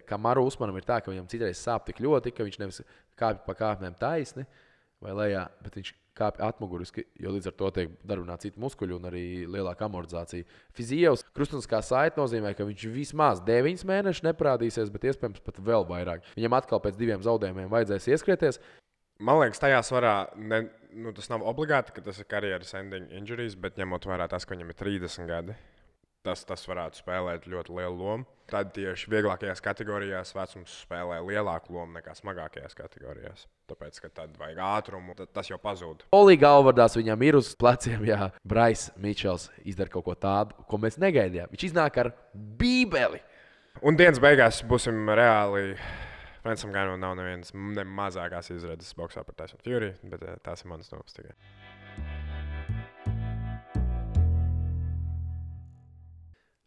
ka Maru Usmanam ir tā, ka viņam citreiz sāp tik ļoti, ka viņš nevis kāpj pa kāpnēm taisni vai lejā, bet viņš kāpj atmuguriski, jo līdz ar to tiek darbināti citi muskuļi un arī lielāka amortizācija. Fizijevs krustuniskā saite nozīmē, ka viņš vismaz 9 mēnešus neparādīsies, bet iespējams pat vēl vairāk. Viņam atkal pēc 2 zaudējumiem vajadzēs ieskrieties. Man liekas, tajā svarā tas nav obligāti, ka tas ir karjeras ending injuries, bet ņemot vērā tas, ka viņam ir 30 gadi. Tas varētu spēlēt ļoti lielu lomu. Tad tieši vieglākajās kategorijās vecums spēlē lielāku lomu nekā smagākajās kategorijās. Tāpēc, ka tad vajag ātrumu, tas jau pazūd. Olī galvvardās viņam ir uz pleciem, jā, Brais Mičels izdara kaut ko tādu, ko mēs negaidījām. Viņš iznāk ar bībeli. Un dienas beigās būsim reāli. Francam Ganu nav nevienas ne mazākās izredzes boksā par Tyson Fury, bet tās ir manas domas tikai.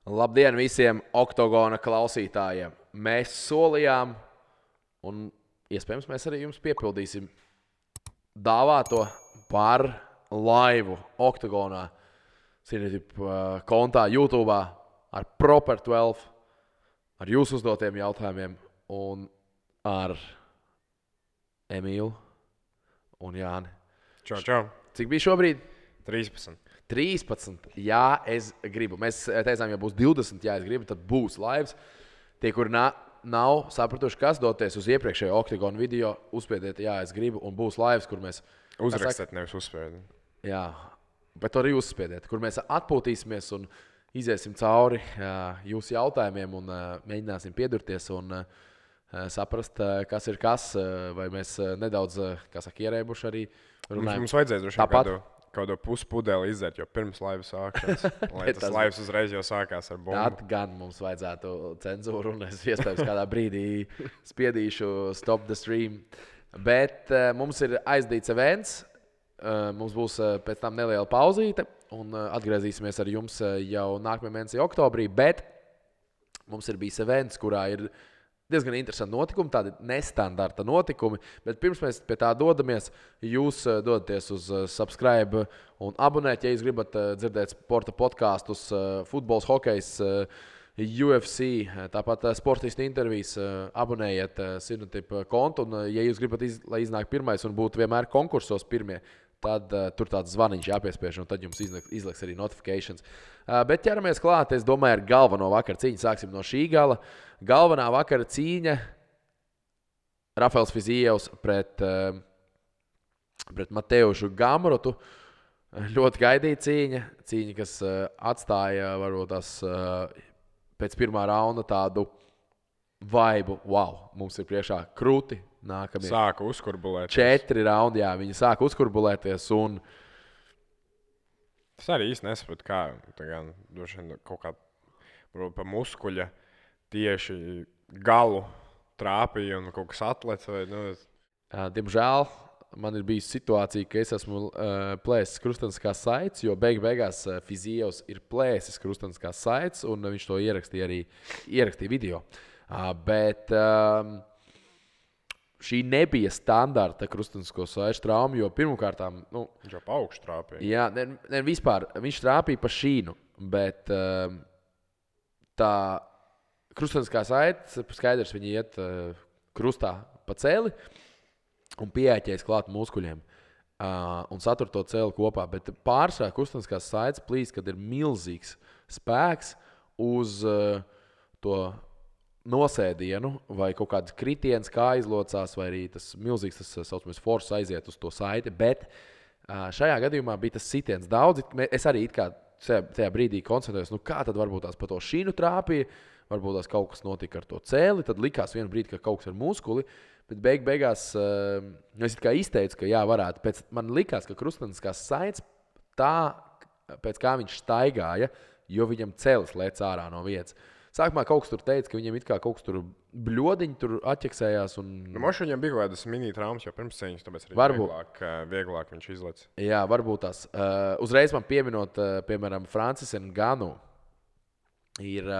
Labdien visiem Oktogona klausītājiem! Mēs solījām, un iespējams mēs arī jums piepildīsim dāvāto par laivu Oktogonā, kontā YouTube ar Proper 12, ar jūsu uzdotiem jautājumiem un ar Emīlu un Jāni. Čau. Cik bija šobrīd? 13. 13. Jā, es gribu. Mēs teicām, ja būs 20, ja es gribu, tad būs laivs. Tie, kuri nav sapratuši, kas doties uz iepriekšējo Oktogonu video, uzspiediet, jā, es gribu, un būs laivs, kur mēs... Uzrakstiet, nevis uzspiediet. Jā, bet arī uzspiediet, kur mēs atpūtīsimies un iziesim cauri jūsu jautājumiem un mēģināsim piedurties un saprast, kas ir kas, vai mēs nedaudz, ierēbuši arī runājam. Mums vajadzēs droši kaut kādu puspudeli izdzert, jo pirms laivas sākšanas, lai tas laivs uzreiz jau sākās ar bumbu. Tad gan mums vajadzētu cenzūru, un es iespējams kādā brīdī spiedīšu stop the stream. Bet mums ir aizdīts events, mums būs pēc tam neliela pauzīte, un atgriezīsimies ar jums jau nākamajā mēnesī oktobrī, bet mums ir bijis events, kurā ir diezgan interesanti notikumi, tādi nestandarta notikumi, bet pirms mēs pie tā dodamies, jūs dodaties uz subscribe un abonēt, ja jūs gribat dzirdēt sporta podkastus, futbols, hokejs, UFC, tāpat sportistu intervijas, abonējiet Sinotip kontu, un ja jūs gribat, lai iznāk pirmais un būtu vienmēr konkursos pirmie, tad tur tāds zvaniņš jāpiespiež, un tad jums izliks arī notifications. Bet ķeramies klāt, es domāju, ar galveno vakar cīņu. Sāksim no šī gala. Galvenā vakara cīņa Rafaels Fizijevs pret Mateušu Gamrotu. Ļoti gaidīta cīņa. Cīņa, kas atstāja varbūt tās pēc pirmā raunda tādu vaibu. Wow, mums ir priekšā krūti. Nākamie. Sāka uzkurbulēties. 4 raundi, jā, viņi sāka uzkurbulēties un... Es arī īsti nesapratu, kā kaut kā pa muskuļa tieši galu trāpīja un kaut kas atlec. Diemžēl man ir bijusi situācija, ka es esmu plēsis krusteniskās saites, jo beigās Fizijevs ir plēsis krusteniskās saites, un viņš to ierakstīja video. Bet... Šī nebija standarta krustenisko saišu trauma, jo pirmkārtām... Viņš jau pa augšu trāpīja. Jā, ne vispār. Viņš trāpīja pa šīnu, bet tā krusteniskā saite, skaidrs, viņi iet krustā pa celi un pieēķējas klāt muskuļiem un satur to celi kopā. Bet pārsvarā krusteniskās saites plīst, kad ir milzīgs spēks uz to nosēdienu vai kaut kāds kritiens, kā izlocās, vai arī tas milzīgs, tas saucamais force aiziet uz to saiti, bet šajā gadījumā bija tas sitiens daudz. Es arī tajā brīdī koncentrējos, kā tad varbūt tās pa to šīnu trāpīja, varbūt tās kaut kas notika ar to cēli, tad likās vienu brīdi, ka kaut kas ar muskuli, bet beigās es it kā izteicu, ka jā, varētu. Man likās, ka krusteniskās saites tā, pēc kā viņš staigāja, jo viņam cēlis lēc ārā no vietas. Sākumā kaut kas tur teica, ka viņam it kā kaut kas tur bļodiņi tur atķeksējās. Moši viņam bija kaut kādas mini-traumas jau pirms cīņas, tāpēc arī vieglāk viņš izlec. Jā, varbūt tās. Uzreiz man pieminot, piemēram, Francis Nganu ir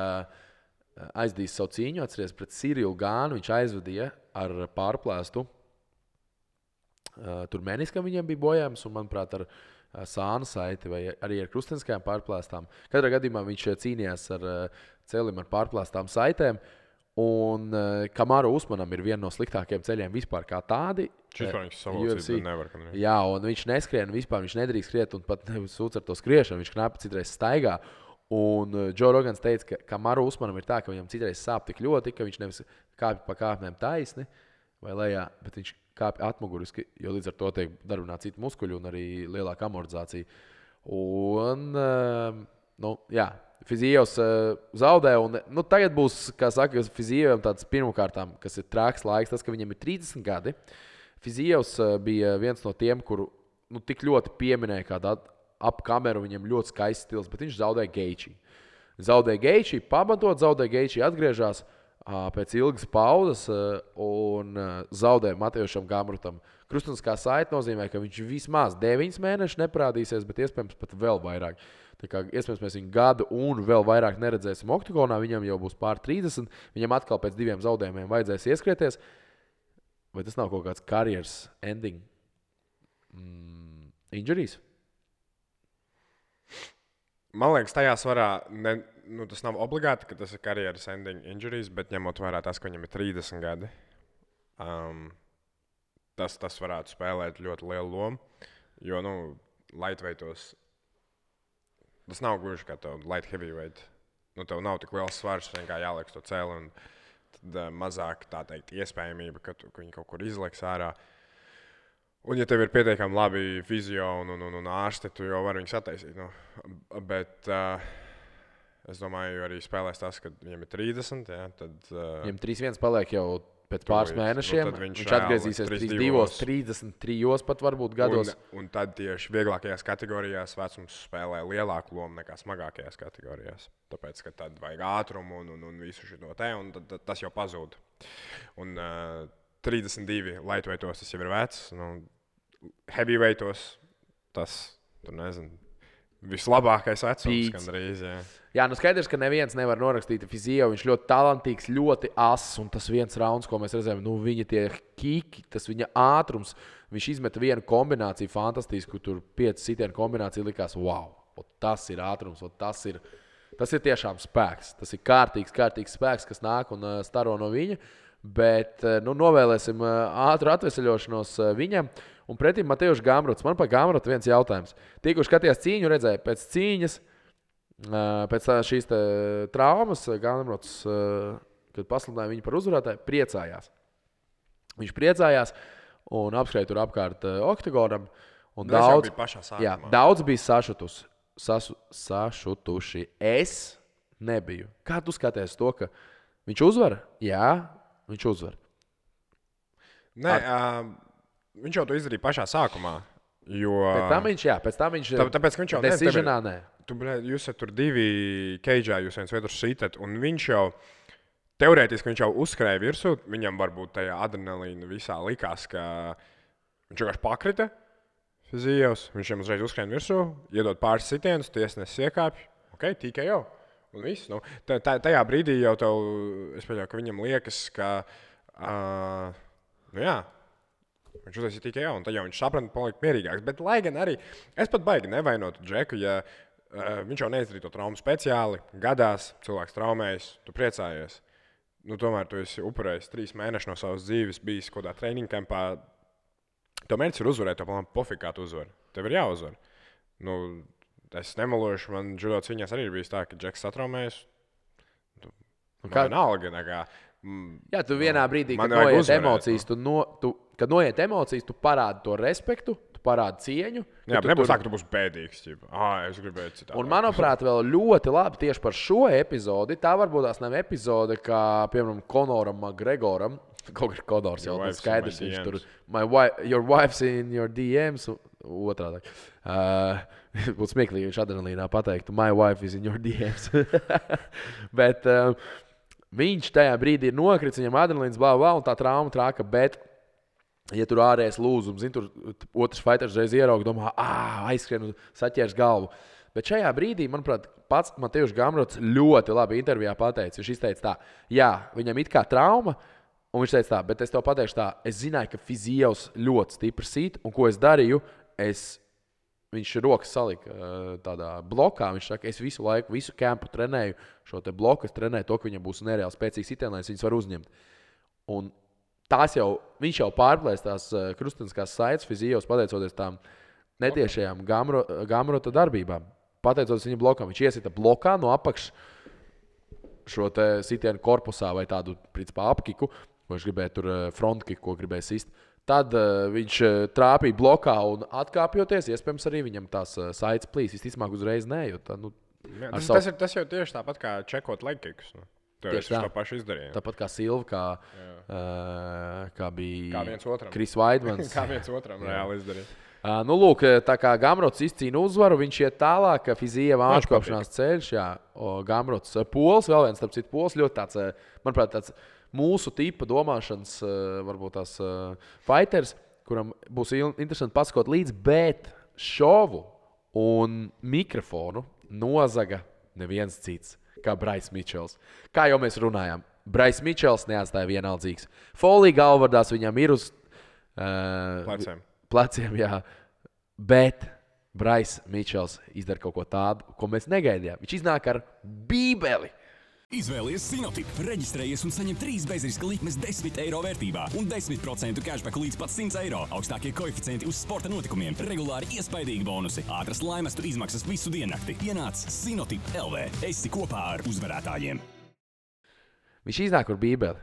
aizdījis savu cīņu, atceries pret Cirilu Gānu, viņš aizvadīja ar pārplēstu. Tur meniskam viņam bija bojājums un, manuprāt, ar sāna saiti vai arī ar krusteniskajām pārplēstām. Katrā gadījumā viņš cīnījās ar celim ar pārplēstām saitēm. Un Kamaru Usmanam ir viena no sliktākajiem ceļiem vispār kā tādi. Šis viņš savocīja, bet nevar. Jā, un viņš neskrien, vispār viņš nedrīkst skriet, un pat sūdz ar to skriešanu, viņš knapi citreiz staigā. Un Džo Rogans teica, ka Kamaru Usmanam ir tā, ka viņam citreiz sāp tik ļoti, ka viņš nevis kāpj pa kāpnēm taisni vai lejā, bet viņš kāpj atmuguriski, jo līdz ar to tiek darbināti citi muskuļi un arī lielāka amortizācija. Un, jā, Fizijevs zaudē, un tagad būs, kā saka, Fizijevam tāds pirmkārtām, kas ir trāks laiks, tas, ka viņam ir 30 gadi. Fizijevs bija viens no tiem, kuru tik ļoti pieminēja kādu ap kameru, viņam ļoti skaists stils, bet viņš zaudēja Geiči. Pamatot zaudēja Geiči, atgriežās pēc ilgas pauzes un zaudēja Matejušam Gamrutam. Krustuniskā saite nozīmē, ka viņš vismaz 9 mēnešus neparādīsies, bet iespējams pat vēl vairāk. Tā kā iespējams mēs viņu gadu un vēl vairāk neredzēsim oktagonā, viņam jau būs pār 30, viņam atkal pēc 2 zaudējumiem vajadzēs ieskrieties. Vai tas nav kaut kāds karjeras ending injuries? Man liekas, tajā svarā tas nav obligāti, ka tas ir karjeras ending injuries, bet ņemot vērā tas, ka viņam ir 30 gadi, tas varētu spēlēt ļoti lielu lomu. Jo, lightweightos tas nav gluži kā tev light heavyweight. Tev nav tik liels svars, vienkārši jāliek to cēli, un tad mazāk, tā teikt, iespējamība, ka viņi kaut kur izliks ārā. Un, ja tev ir pietiekami labi fizio un ārsti, tu jau vari viņus attaisīt. Bet es domāju, arī spēlēs tas, ka viņam ir 30, ja, tad... Viņam 3-1 paliek jau pēc pāris mēnešiem. Viņš atgriezīsies 33 pat varbūt gados. Un tad tieši vieglākajās kategorijās vecums spēlē lielāku lomu nekā smagākajās kategorijās. Tāpēc, ka tad vajag ātrumu un visu šo te, un tad tas jau pazūd. Un 32 lightweightos tas jau ir vecs. Heavyweightos tas, tur nezinu, vislabākais vecums gandrīz, jā. Jā, skaidrs, ka neviens nevar norakstīt Fizijevu. Viņš ļoti talantīgs, ļoti ass, un tas viens rauns, ko mēs redzējām, viņa tie kiki, tas viņa ātrums, viņš izmeta vienu kombināciju fantastisku, tur 5 sitienu kombināciju likās, wow, tas ir ātrums, tas ir tiešām spēks. Tas ir kārtīgs spēks, kas nāk un staro no viņa, bet novēlēsim ātru atveseļošanos viņam. Un pretim Matejuš Gamruts. Man par Gamrutu viens jautājums. Tie, kurš skatījās cīņu, redzēja pēc cīņas, pēc šīs traumas, Gamruts, kad pasludināja viņu par uzvarētāju, priecājās. Viņš priecājās un apskrēja tur apkārt oktagonam. Daudz bija sašutuši. Es nebiju. Kā tu skaties to, ka viņš uzvar? Jā, viņš uzvar. Nē, viņš jau to izdarīja pašā sākumā. Pēc tam viņš tāpēc, ka viņš jau decisionā, nē. Jūs esat tur 2 keidžā, jūs viens otru sitat, un viņš jau, teorētiski viņš jau uzskrēja virsū, viņam varbūt tajā adrenalīna visā likās, ka viņš vienkārši pakrita Fizijevs, viņš jau uzreiz uzskrēja virsū, iedod pāris sitienus, tiesnesis iekāpj, tikai jau, un viss. Tajā brīdī jau tev, es pieļauju, ka viņam liekas, ka, viņš uztaisīja tikai jau, un tad jau viņš saprata, palikt mierīgāks. Bet, lai gan arī, es pat baigi nevainotu Džeku, ja viņš jau neizdarīja to traumu speciāli, gadās, cilvēks traumējas, tu priecājies. Tomēr tu esi upurējis 3 mēnešus no savas dzīves, bijis kaut kādā training kampā. Tev mērķis ir uzvarēt, tev palām pofīgi, kā tu uzvari. Tev ir jāuzvar. Es nemelošu, man judo cīņās arī ir bijis tā, ka Džeks satraumējas. Vienalga, jā, tu vienā brīdī, kad noiet emocijas, kad noiet emocijas, tu parādi to respektu, tu parādi cieņu. Jā, bet nebūs tā, ka tu būsi bēdīgs. Es gribēju citādi. Un, manuprāt, vēl ļoti labi tieši par šo epizodi. Tā varbūt tās nav epizode, kā, piemēram, Konoram McGregoram. Kaut kā Konors jau tas skaidrs, viņš tur, your wife's in your DMs, otrādāk. Būtu smieklīgi, viņš adrenalīnā pateiktu, my wife is in your DMs. Bet viņš tajā brīdī ir nokritis, viņam adrenalīns, un tā trauma trāka, bet ja tur ārējais lūzums, tur otrs fighters reiz ierauga, domā, aizskrien un saķers galvu. Bet šajā brīdī, manuprāt, pats Matejuš Gamruts ļoti labi intervijā pateica. Viņš izteica tā, jā, viņam it kā trauma, un viņš teica tā, bet es tev pateikšu tā, es zināju, ka Fizijevs ļoti stipri sīt, un ko es darīju, es viņš rokas salika tādā blokā. Viņš saka, es visu laiku, visu kempu trenēju šo te bloku, es trenēju to, ka viņam būs nereāli spēcīgs sitiens, lai viņas var uzņemt. Un viņš jau pārplēs tās krusteniskās saites fizijos, pateicoties tām netiešajām Gamrota darbībām. Pateicoties viņa blokam, viņš iesita blokā no apakšas šo te sitienu korpusā vai tādu, principā, apkiku, ko viņš gribēja tur frontkiku, ko gribēja sist. Tad viņš trāpīja blokā un atkāpjoties, iespējams arī viņam tās saites plīs. Visticamāk uzreiz nē, jo tā, tas jau tieši tāpat kā čekot legkikus. Tieši to pašu izdarīja. Tāpat kā Silva, kā bija viens otram. Kris Vaidmans. Kā viens otram reāli izdarīja. Nu, lūk, tā kā Gamrots izcīna uzvaru, viņš iet tālāk, Fizija vāčkopšanās ceļš, Gamrots Pols, vēl viens, starp citu, Pols, ļoti tāds, manuprāt, tāds mūsu tipa domāšanas, varbūt tās fighters, kuram būs interesanti pasakot līdz, bet šovu un mikrofonu nozaga neviens cits, kā Brais Mičels. Kā jau mēs runājām, Brais Mičels neatstāja vienaldzīgs. Folija galvardās viņam ir uz pleciem, jā. Bet Brais Mičels izdara kaut ko tādu, ko mēs negaidījām. Viņš iznāk ar bībeli. Izvēlies Sinotip, reģistrējies un saņem 3 bezriska likmes 10 eiro vērtībā un 10% cashback līdz pat 100 eiro. Augstākie koeficienti uz sporta notikumiem, regulāri iespaidīgi bonusi, ātras laimestu izmaksas visu diennakti. Ienāc Sinotip LV. Esi kopā ar uzvarētājiem. Viņš iznāk ar bībeli,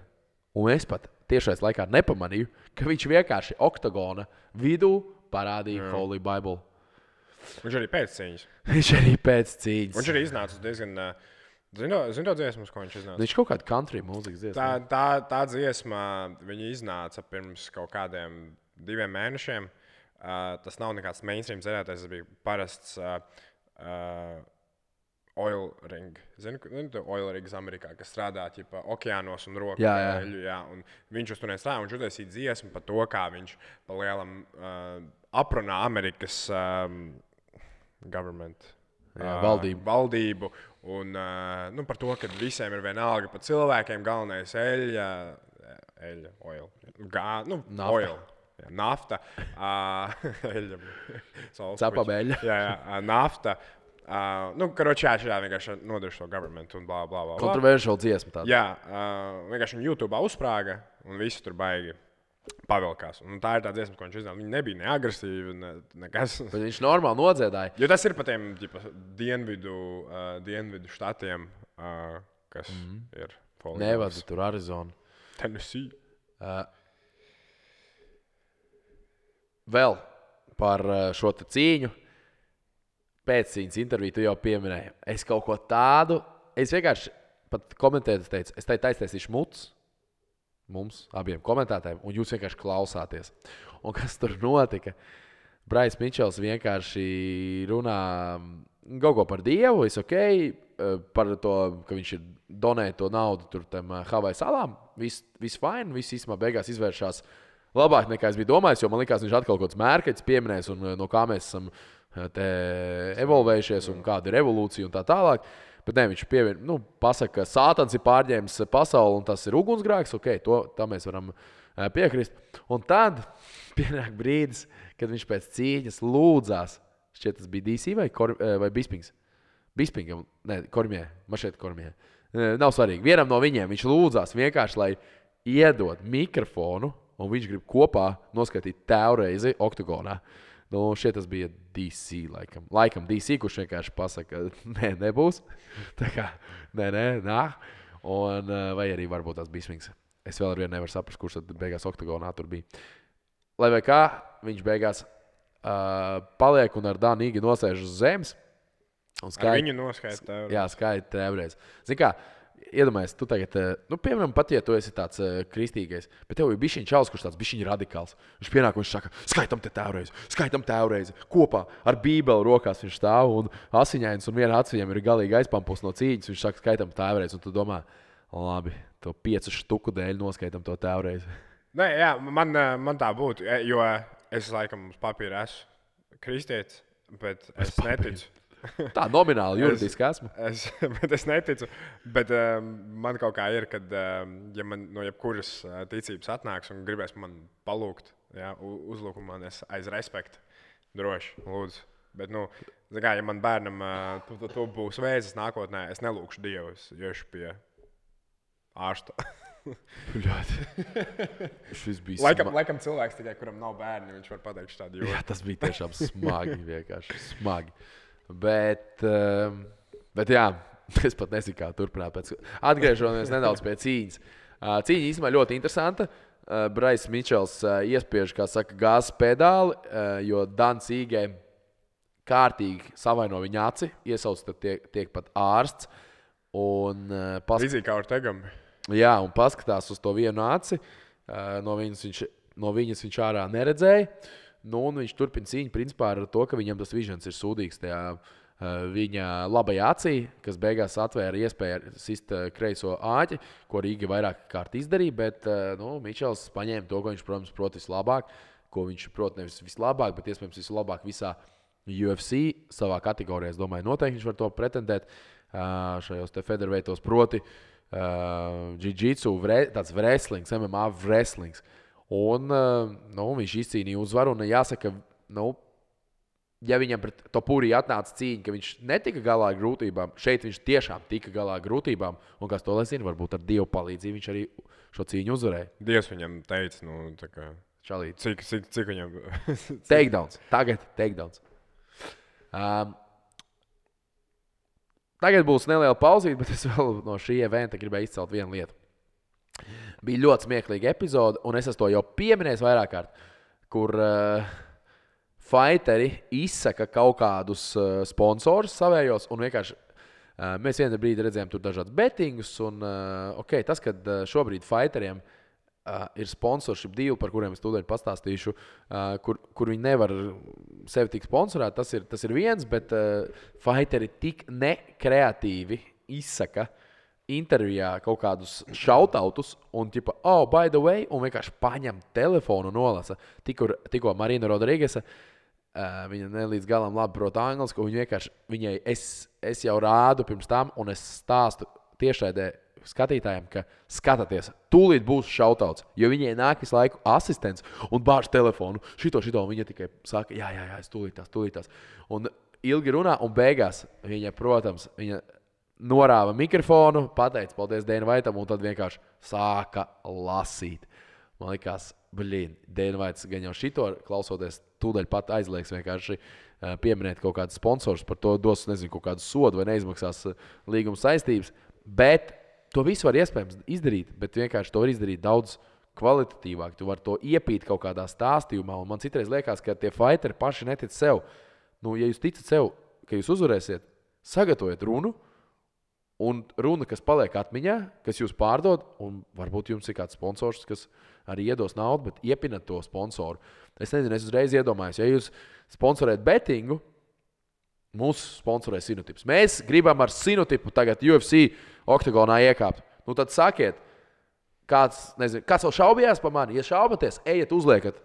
un es pat tiešais laikā nepamanīju, ka viņš vienkārši oktagona vidū parādīja Holy Bible. Viņš arī pēc cīņas. Viņš arī iznāca diezgan... Zini to dziesmu, ko viņš iznāca? Viņš kaut kādu country mūzikas dziesmu. Tā dziesma, viņa iznāca pirms kaut kādiem 2 mēnešiem. Tas nav nekāds mainstream dziedātājs, tas bija parasts oil ring. Zini oil rings Amerikā, kas strādā ķipa okeānos un roku. Jā. Un viņš uz turieni strādā, viņš uztaisīja dziesmu par to, kā viņš pa lielam aprunā Amerikas government. Valdību un par to, ka visiem ir vienalga par cilvēkiem, galvenais nafta, Cepabeļa. Nafta. Šādā vienkārši nodarš to government un blā, blā, blā. Kontroversiāla dziesma tāda. Jā, vienkārši viņa YouTube uzsprāga un visi tur baigi pavilkās. Un tā ir tā dziesma, ko viņš iznāca. Viņa nebija ne agresīva, nekas. Bet viņš normāli nodziedāja. Jo tas ir pa tiem dienvidu štatiem, kas ir Nevada, tur Arizona. Tennessee. Vēl par šo te cīņu. Pēccīņas interviju tu jau pieminēji. Es kaut ko tādu, es vienkārši pat komentēju, teicu, es taisīšu muts. Mums abiem komentētājiem, un jūs vienkārši klausāties. Un kas tur notika? Brais Mičels vienkārši runā kaut ko par Dievu, par to, ka viņš ir donējis to naudu tur tam Havaju salām. Viss fine, viss īstenībā beigās izvēršās labāk nekā es biju domājis, jo man likās, viņš atkal kaut kāds mērķis pieminēs, un no kā mēs esam te evolvējušies, un kāda ir evolūcija un tā tālāk. Bet ne, viņš pasaka, ka Sātans ir pārņēmis pasauli un tas ir ugunsgrēks. Tā mēs varam piekrist. Un tad pienāk brīdis, kad viņš pēc cīņas lūdzās. Šķiet, tas bija DC vai Bispings? Bispingam, Kormijai. Man šeit Kormijai. Nav svarīgi. Vienam no viņiem viņš lūdzās vienkārši, lai iedod mikrofonu, un viņš grib kopā noskaitīt tēvreizi oktagonā. Šeit tas bija DC, laikam DC, kurš vienkārši pasaka, ka nebūs. Tā kā, nā. Un, vai arī varbūt tas Bispings. Es vēl ar vienu nevaru saprast, kurš tad beigās oktagonā tur bija. Lai vai kā, viņš beigās paliek un ar Danīgi nosēž uz zemes. Viņu noskaita tēvreiz. Jā, skaita tēvreiz. Zini kā, iedomājies, tu tagad, piemēram, pat ja tu esi tāds kristīgais, bet tev ir bišķiņ čalis, kurš tāds bišķiņ radikāls. Viņš pienāk un viņš saka, skaitam tēvreiz, kopā ar bībeli rokās viņš stāv un asiņains un viena acs viņam ir galīgi aizpampus no cīņas. Viņš saka, skaitam tēvreiz, un tu domā, labi, to 5 štuku dēļ noskaitam to tēvreiz. Nē, jā, man tā būtu, jo es laikam uz papīra esmu kristietis, bet es neticu. Tā nomināli, juridiski esmu. Bet es neticu. Bet man kaut kā ir, kad ja man no jebkuras ticības atnāks un gribēs man palūgt, uzlūk man aiz respektu, droši, lūdzu. Bet, ja man bērnam tu būs vēzis nākotnē, es nelūkšu Dievu, es iešu pie ārsta. Šis bija Laikam cilvēks tikai, kuram nav bērni, viņš var pateikt šādu joku. Jā, tas bija tiešām smagi, vienkārši smagi. Bet jā, es pat nezinu, kā turpināt. Atgriežoties nedaudz pie cīņas. Cīņa īstenībā ļoti interesanta. Brais Mičels iespiež, kā saka, gāzes pedāli, jo Dans Īgē kārtīgi savaino viņa aci, iesauc, tad tiek pat ārsts. Līdzīgi kā Ortegam. Jā, un paskatās uz to vienu aci. No viņas viņš ārā neredzēja. Un viņš turpina cīņu principā ar to, ka viņam tas vižens ir sūdīgs tajā viņa labajā acī, kas beigās atvēra iespēju sist kreiso āķi, ko Rīga vairāk kārt izdarīja. Bet Mičels paņēma to, ko viņš, protams, prot vislabāk, ko viņš prot nevis vislabāk, bet iespējams vislabāk visā UFC savā kategorijā. Es domāju, noteikti viņš var to pretendēt šajos te featherweightos, proti jiu-jitsu, tāds wrestlings, MMA wrestlings. Un viņš izcīnīja uzvaru. Un jāsaka, ja viņam pret Topuri atnāca cīņa, ka viņš netika galā ar grūtībām, šeit viņš tiešām tika galā ar grūtībām. Un kas to lai zina, varbūt ar Dievu palīdzību viņš arī šo cīņu uzvarēja. Dievs viņam teica, tā kā Čalīt. Cik viņam... Takedowns. Tagad takedowns. Tagad būs neliela pauzīte, bet es vēl no šī eventa gribēju izcelt vienu lietu. Bija ļoti smieklīga epizode, un es to jau pieminēju vairāk kārt, kur fighteri izsaka kaut kādus sponsorus savējos, un vienkārši mēs vienā brīdī redzējām tur dažādus bettingus, un tas, kad šobrīd fightieriem ir sponsorship deal, par kuriem es tūdaļ pastāstīšu, kur viņi nevar sevi tik sponsorēt, tas ir viens, bet fighteri tik nekreatīvi izsaka intervijā kaut kādus shoutoutus un tipa, by the way, un vienkārši paņem telefonu un nolasa. Tikko Marina Rodrīgesa, viņa ne līdz galam labi prot angliski, un viņai es jau rādu pirms tam, un es stāstu tiešraidē skatītājiem, ka skatāties, tūlīt būs shoutouts, jo viņai nāk visu laiku asistents un bāž telefonu, šito, un viņa tikai saka, jā, es tūlītās. Un ilgi runā, un beigās viņa, protams, norāva mikrofonu, pateica paldies Dana Whiteam, un tad vienkārši sāka lasīt. Man likās, Dana Whites gan jau šito klausoties, tūdaļ pat aizliegs vienkārši pieminēt kaut kādus sponsors, par to dos, nezinu, kaut kādu sodu vai neizmaksās līguma saistības, bet to visu var iespējams izdarīt, bet vienkārši to var izdarīt daudz kvalitatīvāk. Tu vari to iepīt kaut kādā stāstījumā, un man citreiz liekas, ka tie fighteri paši netic sev. Ja jūs ticat sev, ka jūs uzvarēsiet, sagatavojiet runu, un runa, kas paliek atmiņā, kas jūs pārdod, un varbūt jums ir kāds sponsors, kas arī iedos naudu, bet iepinat to sponsoru. Es nezinu, es uzreiz iedomājos, ja jūs sponsorēt bettingu, mūsu sponsorē Sinotips. Mēs gribam ar Sinotipu tagad UFC oktagonā iekāpt. Tad sakiet, kāds vēl šaubījās par mani? Ja šaubaties, ejiet uzliekat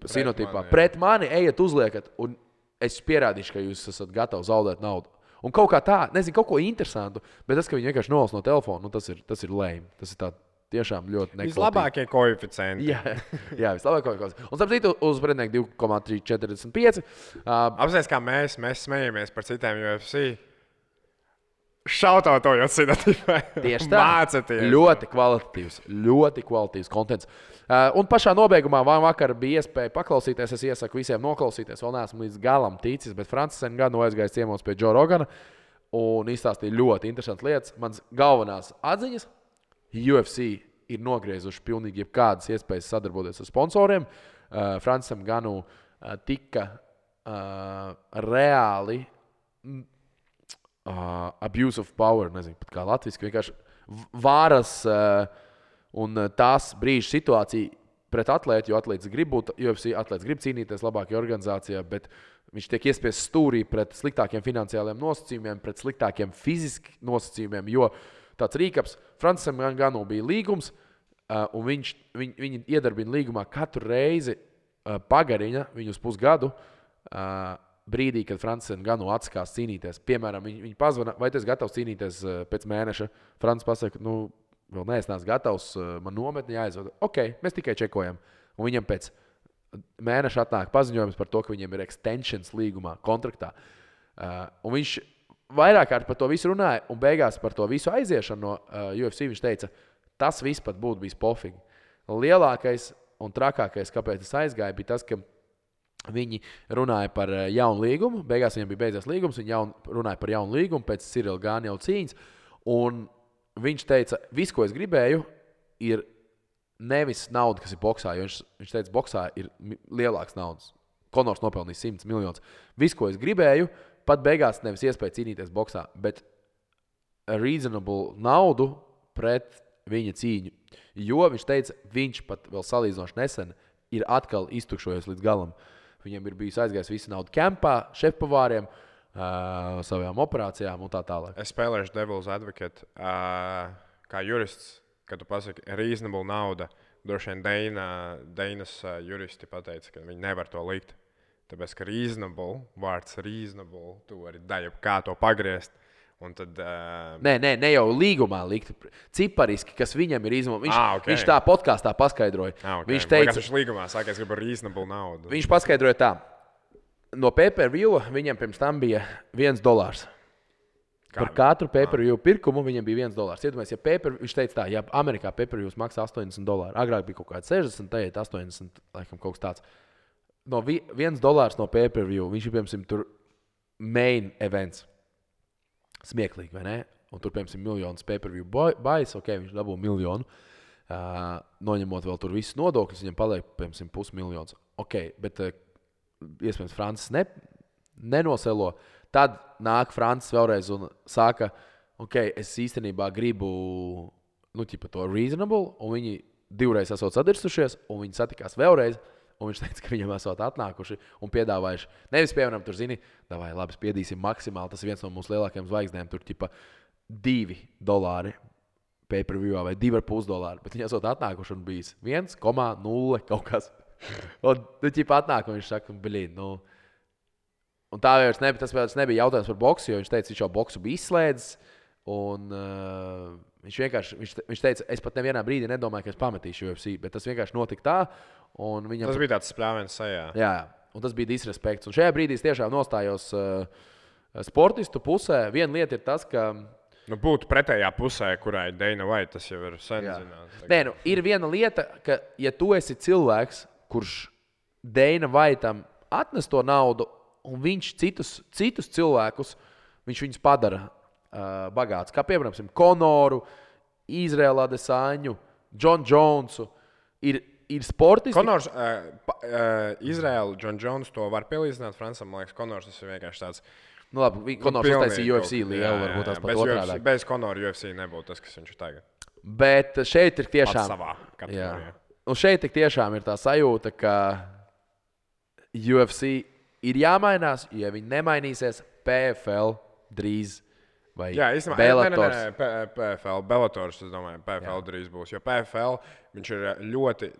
Sinotipā. Pret mani ejiet uzliekat, un es pierādīšu, ka jūs esat gatavi zaudēt naudu. Un kaut kā tā, nezinu, kaut ko interesantu, bet tas, ka viņi vienkārši nolas no telefona, tas ir lame. Tas ir tā tiešām ļoti nekvalitatīvi. Vislabākie koeficienti. Jā, vislabākie koeficienti. Un starp citu uz pretinieku 2,345. Apsēs, kā mēs smējamies par citiem UFC. Šautautojot Sinotipai. Tieši tā. Mācieties. Ļoti kvalitatīvs kontents. Un pašā nobeigumā vakar bija iespēja paklausīties. Es iesaku visiem noklausīties. Vēl neesmu līdz galam ticis, bet Francis Ngannou aizgājis ciemos pie Joe Rogana un izstāstīja ļoti interesantas lietas. Mans galvenās atziņas UFC ir nogriezuši pilnīgi jebkādas iespējas sadarboties ar sponsoriem. Francis Ngannou tika reāli abuse of power, nezinu, pat kā latviski, vienkārši varas un tās brīža situācija pret atlētu, jo atlētis grib būt, UFC atlētis grib cīnīties labākajā organizācijā, bet viņš tiek iespiests stūrī pret sliktākiem finansiāliem nosacījumiem, pret sliktākiem fiziski nosacījumiem, jo tāds rīkaps, Francisam Ngannou bija līgums, un viņi iedarbina līgumā katru reizi pagarina viņu uz pusgadu, brīdī, kad Francis Ngannou atsakās cīnīties. Piemēram, viņi pazvana, vai tu esi gatavs cīnīties pēc mēneša? Francis pasaka, vēl neesmu gatavs, man nometni jāizvada. Ok, mēs tikai čekojam. Un viņam pēc mēneša atnāk paziņojums par to, ka viņiem ir extensions līgumā, kontraktā. Un viņš vairāk kārt par to visu runāja, un beigās par to visu aiziešanu no UFC viņš teica, tas viss pat būtu bijis pofīgi. Lielākais un trakākais, kāpēc es aizgāju, bija tas, ka viņi runāja par jaunu līgumu. Beigās viņam bija beidzies līgums, viņi runāja par jaunu līgumu pēc Cyril Gane jau cīņas. Un viņš teica, viss, ko es gribēju, ir nevis nauda, kas ir boksā, jo viņš teica, boksā ir lielāks naudas. Konors nopelnīs 100 miljonus. Viss, ko es gribēju, pat beigās nevis iespēja cīnīties boksā, bet reasonable naudu pret viņa cīņu. Jo viņš teica, viņš pat vēl salīdzinoši nesen ir atkal iztukšojies līdz galam. Viņam ir bijis aizgājis visu naudu kempā, šefpavāriem, savām operācijām un tā tālāk. Es spēlēšu Devil's Advocate kā jurists, kad tu pasaki reasonable nauda. Droši vien Deinas juristi pateica, ka viņi nevar to likt. Tāpēc, ka reasonable, vārds reasonable, tu vari daļu kā to pagriezt. Un tad, Ne jau līgumā likt cipariski, kas viņam ir izmēģinājums. Okay. Viņš tā podkāstā paskaidroja. Okay. Viņš teica, ka viņš līgumā saka, es gribu reasonable naudu. Viņš paskaidroja tā. No pay-per-view viņam pirms tam bija $1. Par katru pay-per-view pirkumu viņam bija $1. Iedomājies, viņš teica tā, ja Amerikā pay-per-views maksā $80, agrāk bija kaut kāds 60, tagad 80, laikam kaut kas tāds. No $1 no pay-per-view, viņš ir, piemēram, tur main events. Smieklīgi, vai ne? Un tur, piemēram, miljonus pay-per-view buys, viņš dabū miljonu. Noņemot vēl tur visus nodokļus, viņam paliek, piemēram, $500,000. Bet iespējams, Francis nenoselo. Tad nāk Francis vēlreiz un saka, es īstenībā gribu to reasonable, un viņi divreiz esot sadirsušies, un viņi satikās vēlreiz. Un viņš teica, ka viņam esot atnākuši un piedāvājuši. Nevis, piemēram, tur zini, labi, spiedīsim maksimāli. Tas ir viens no mūsu lielākajiem zvaigznēm. Tur tipa $2 pay-per-view vai $2,5. Bet viņi esot atnākuši un bijis 1,0 kaut kas. Un tipa atnāk un viņš saka, Un tā vairs nebija jautājums par boksu, jo viņš teica, viņš jau boksu bija izslēdzis. Un viņš teica, es pat nevienā brīdī nedomāju, ka es pametīšu UFC, bet tas vienkārši notika tā. Tas bija tāds spļāviens sajā. Jā, un tas bija disrespekts. Un šajā brīdī es tiešām nostājos sportistu pusē. Viena lieta ir tas, ka būtu pretējā pusē, kurai Dana White, tas jau ir sen zināms. Nē, ir viena lieta, ka ja tu esi cilvēks, kurš Dana Whiteam atnes to naudu, un viņš citus cilvēkus, viņš viņus padara bagāts. Kā piemēram, Konoru, Izraela Adesaņu, John Jonesu. Ir sportisti. Konors, Izraela, John Jones to var pielīdzināt Francam. Man liekas, Konors tas ir vienkārši tāds. Labi, Konors uztaisīja UFC lielu, varbūt tās pat otrādāk. Bez Konora UFC nebūtu tas, kas viņš ir tagad. Bet šeit ir tiešām. Pats savā kategorijā. Un šeit tiešām ir tā sajūta, ka UFC ir jāmainās, ja viņi nemainīsies, PFL drīz vai Bellators. PFL, Bellators, es domāju, PFL drīz būs, jo PFL viņš ir ļoti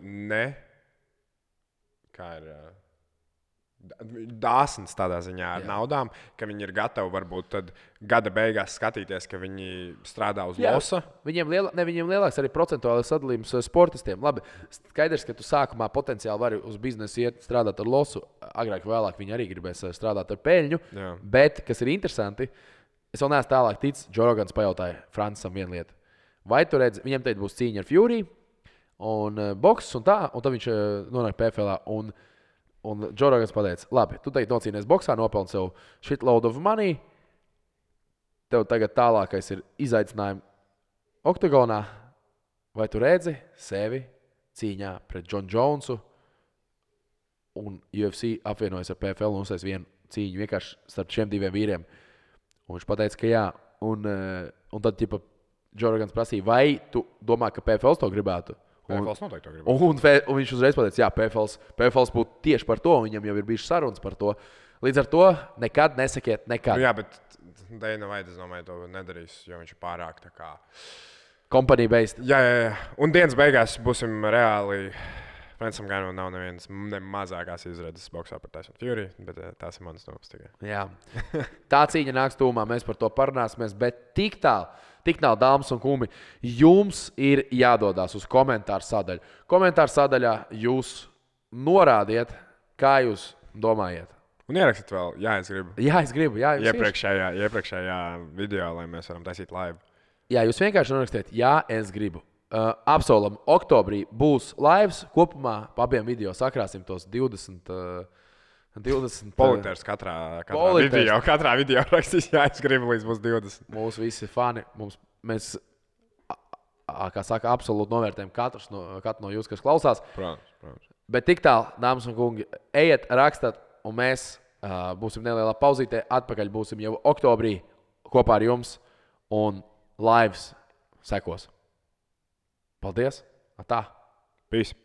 dāsns tādā ziņā ar naudām, ka viņi ir gatavi varbūt tad gada beigās skatīties, ka viņi strādā uz losa. Viņiem lielāks arī procentuālais sadalījums sportistiem. Labi, skaidrs, ka tu sākumā potenciāli vari uz biznesu iet strādāt ar losu. Agrāk vai vēlāk viņi arī gribēs strādāt ar peļņu. Jā. Bet, kas ir interesanti, es vēl neesmu tālāk ticis, Joe Rogans pajautāja Francisam vienu lietu. Vai tu redzi, viņam teikt būs cīņa ar Fury un boks un tā, un tad viņš nonāk PFL. Un Joe Rogans pateica, labi, tu teikt nocīnies boksā, nopelni sev shitload of money. Tev tagad tālākais ir izaicinājumi oktagonā. Vai tu redzi sevi cīņā pret John Jonesu un UFC apvienojas ar PFL un uztais vienu cīņu vienkārši starp šiem diviem vīriem? Un viņš pateica, ka jā. Un tad Joe Rogans prasīja, vai tu domā, ka PFL to gribētu? PFLs noteikti to gribētu. Un viņš uzreiz pateica, jā, PFLs būtu tieši par to, viņam jau ir bijušas sarunas par to. Līdz ar to nekad nesakiet nekad. Jā, bet Dana White, es domāju, to nedarīs, jo viņš ir pārāk tā kā company based. Jā. Un dienas beigās būsim reāli. Francam Ganam nav nevienas mazākās izredzes boksā par Tyson Fury, bet tās ir manas domas tikai. Jā. Tā cīņa nāks tūmā, mēs par to parunāsimies, bet tik tālu, dāmas un kungi, jums ir jādodās uz komentāru sadaļu. Komentāru sadaļā jūs norādiet, kā jūs domājat. Un ierakstiet vēl, es gribu. Jā, es gribu. Jā, Iepriekšējā video, lai mēs varam taisīt live. Jā, jūs vienkārši norakstiet, es gribu. Apsolam, oktobrī būs lives. Kopumā pa abiem video sakrāsim tos 20. Politērs katrā video rakstīs, es gribu līdz būs 20. Mūsu visi fani, mēs, kā saka, absolūti novērtējam katru no jūs, kas klausās. Protams. Bet tik tālu, dāmas un kungi, ejiet, rakstat, un mēs būsim nelielā pauzītē. Atpakaļ būsim jau oktobrī kopā ar jums, un lives sekos. Paldies! Tā! Peace!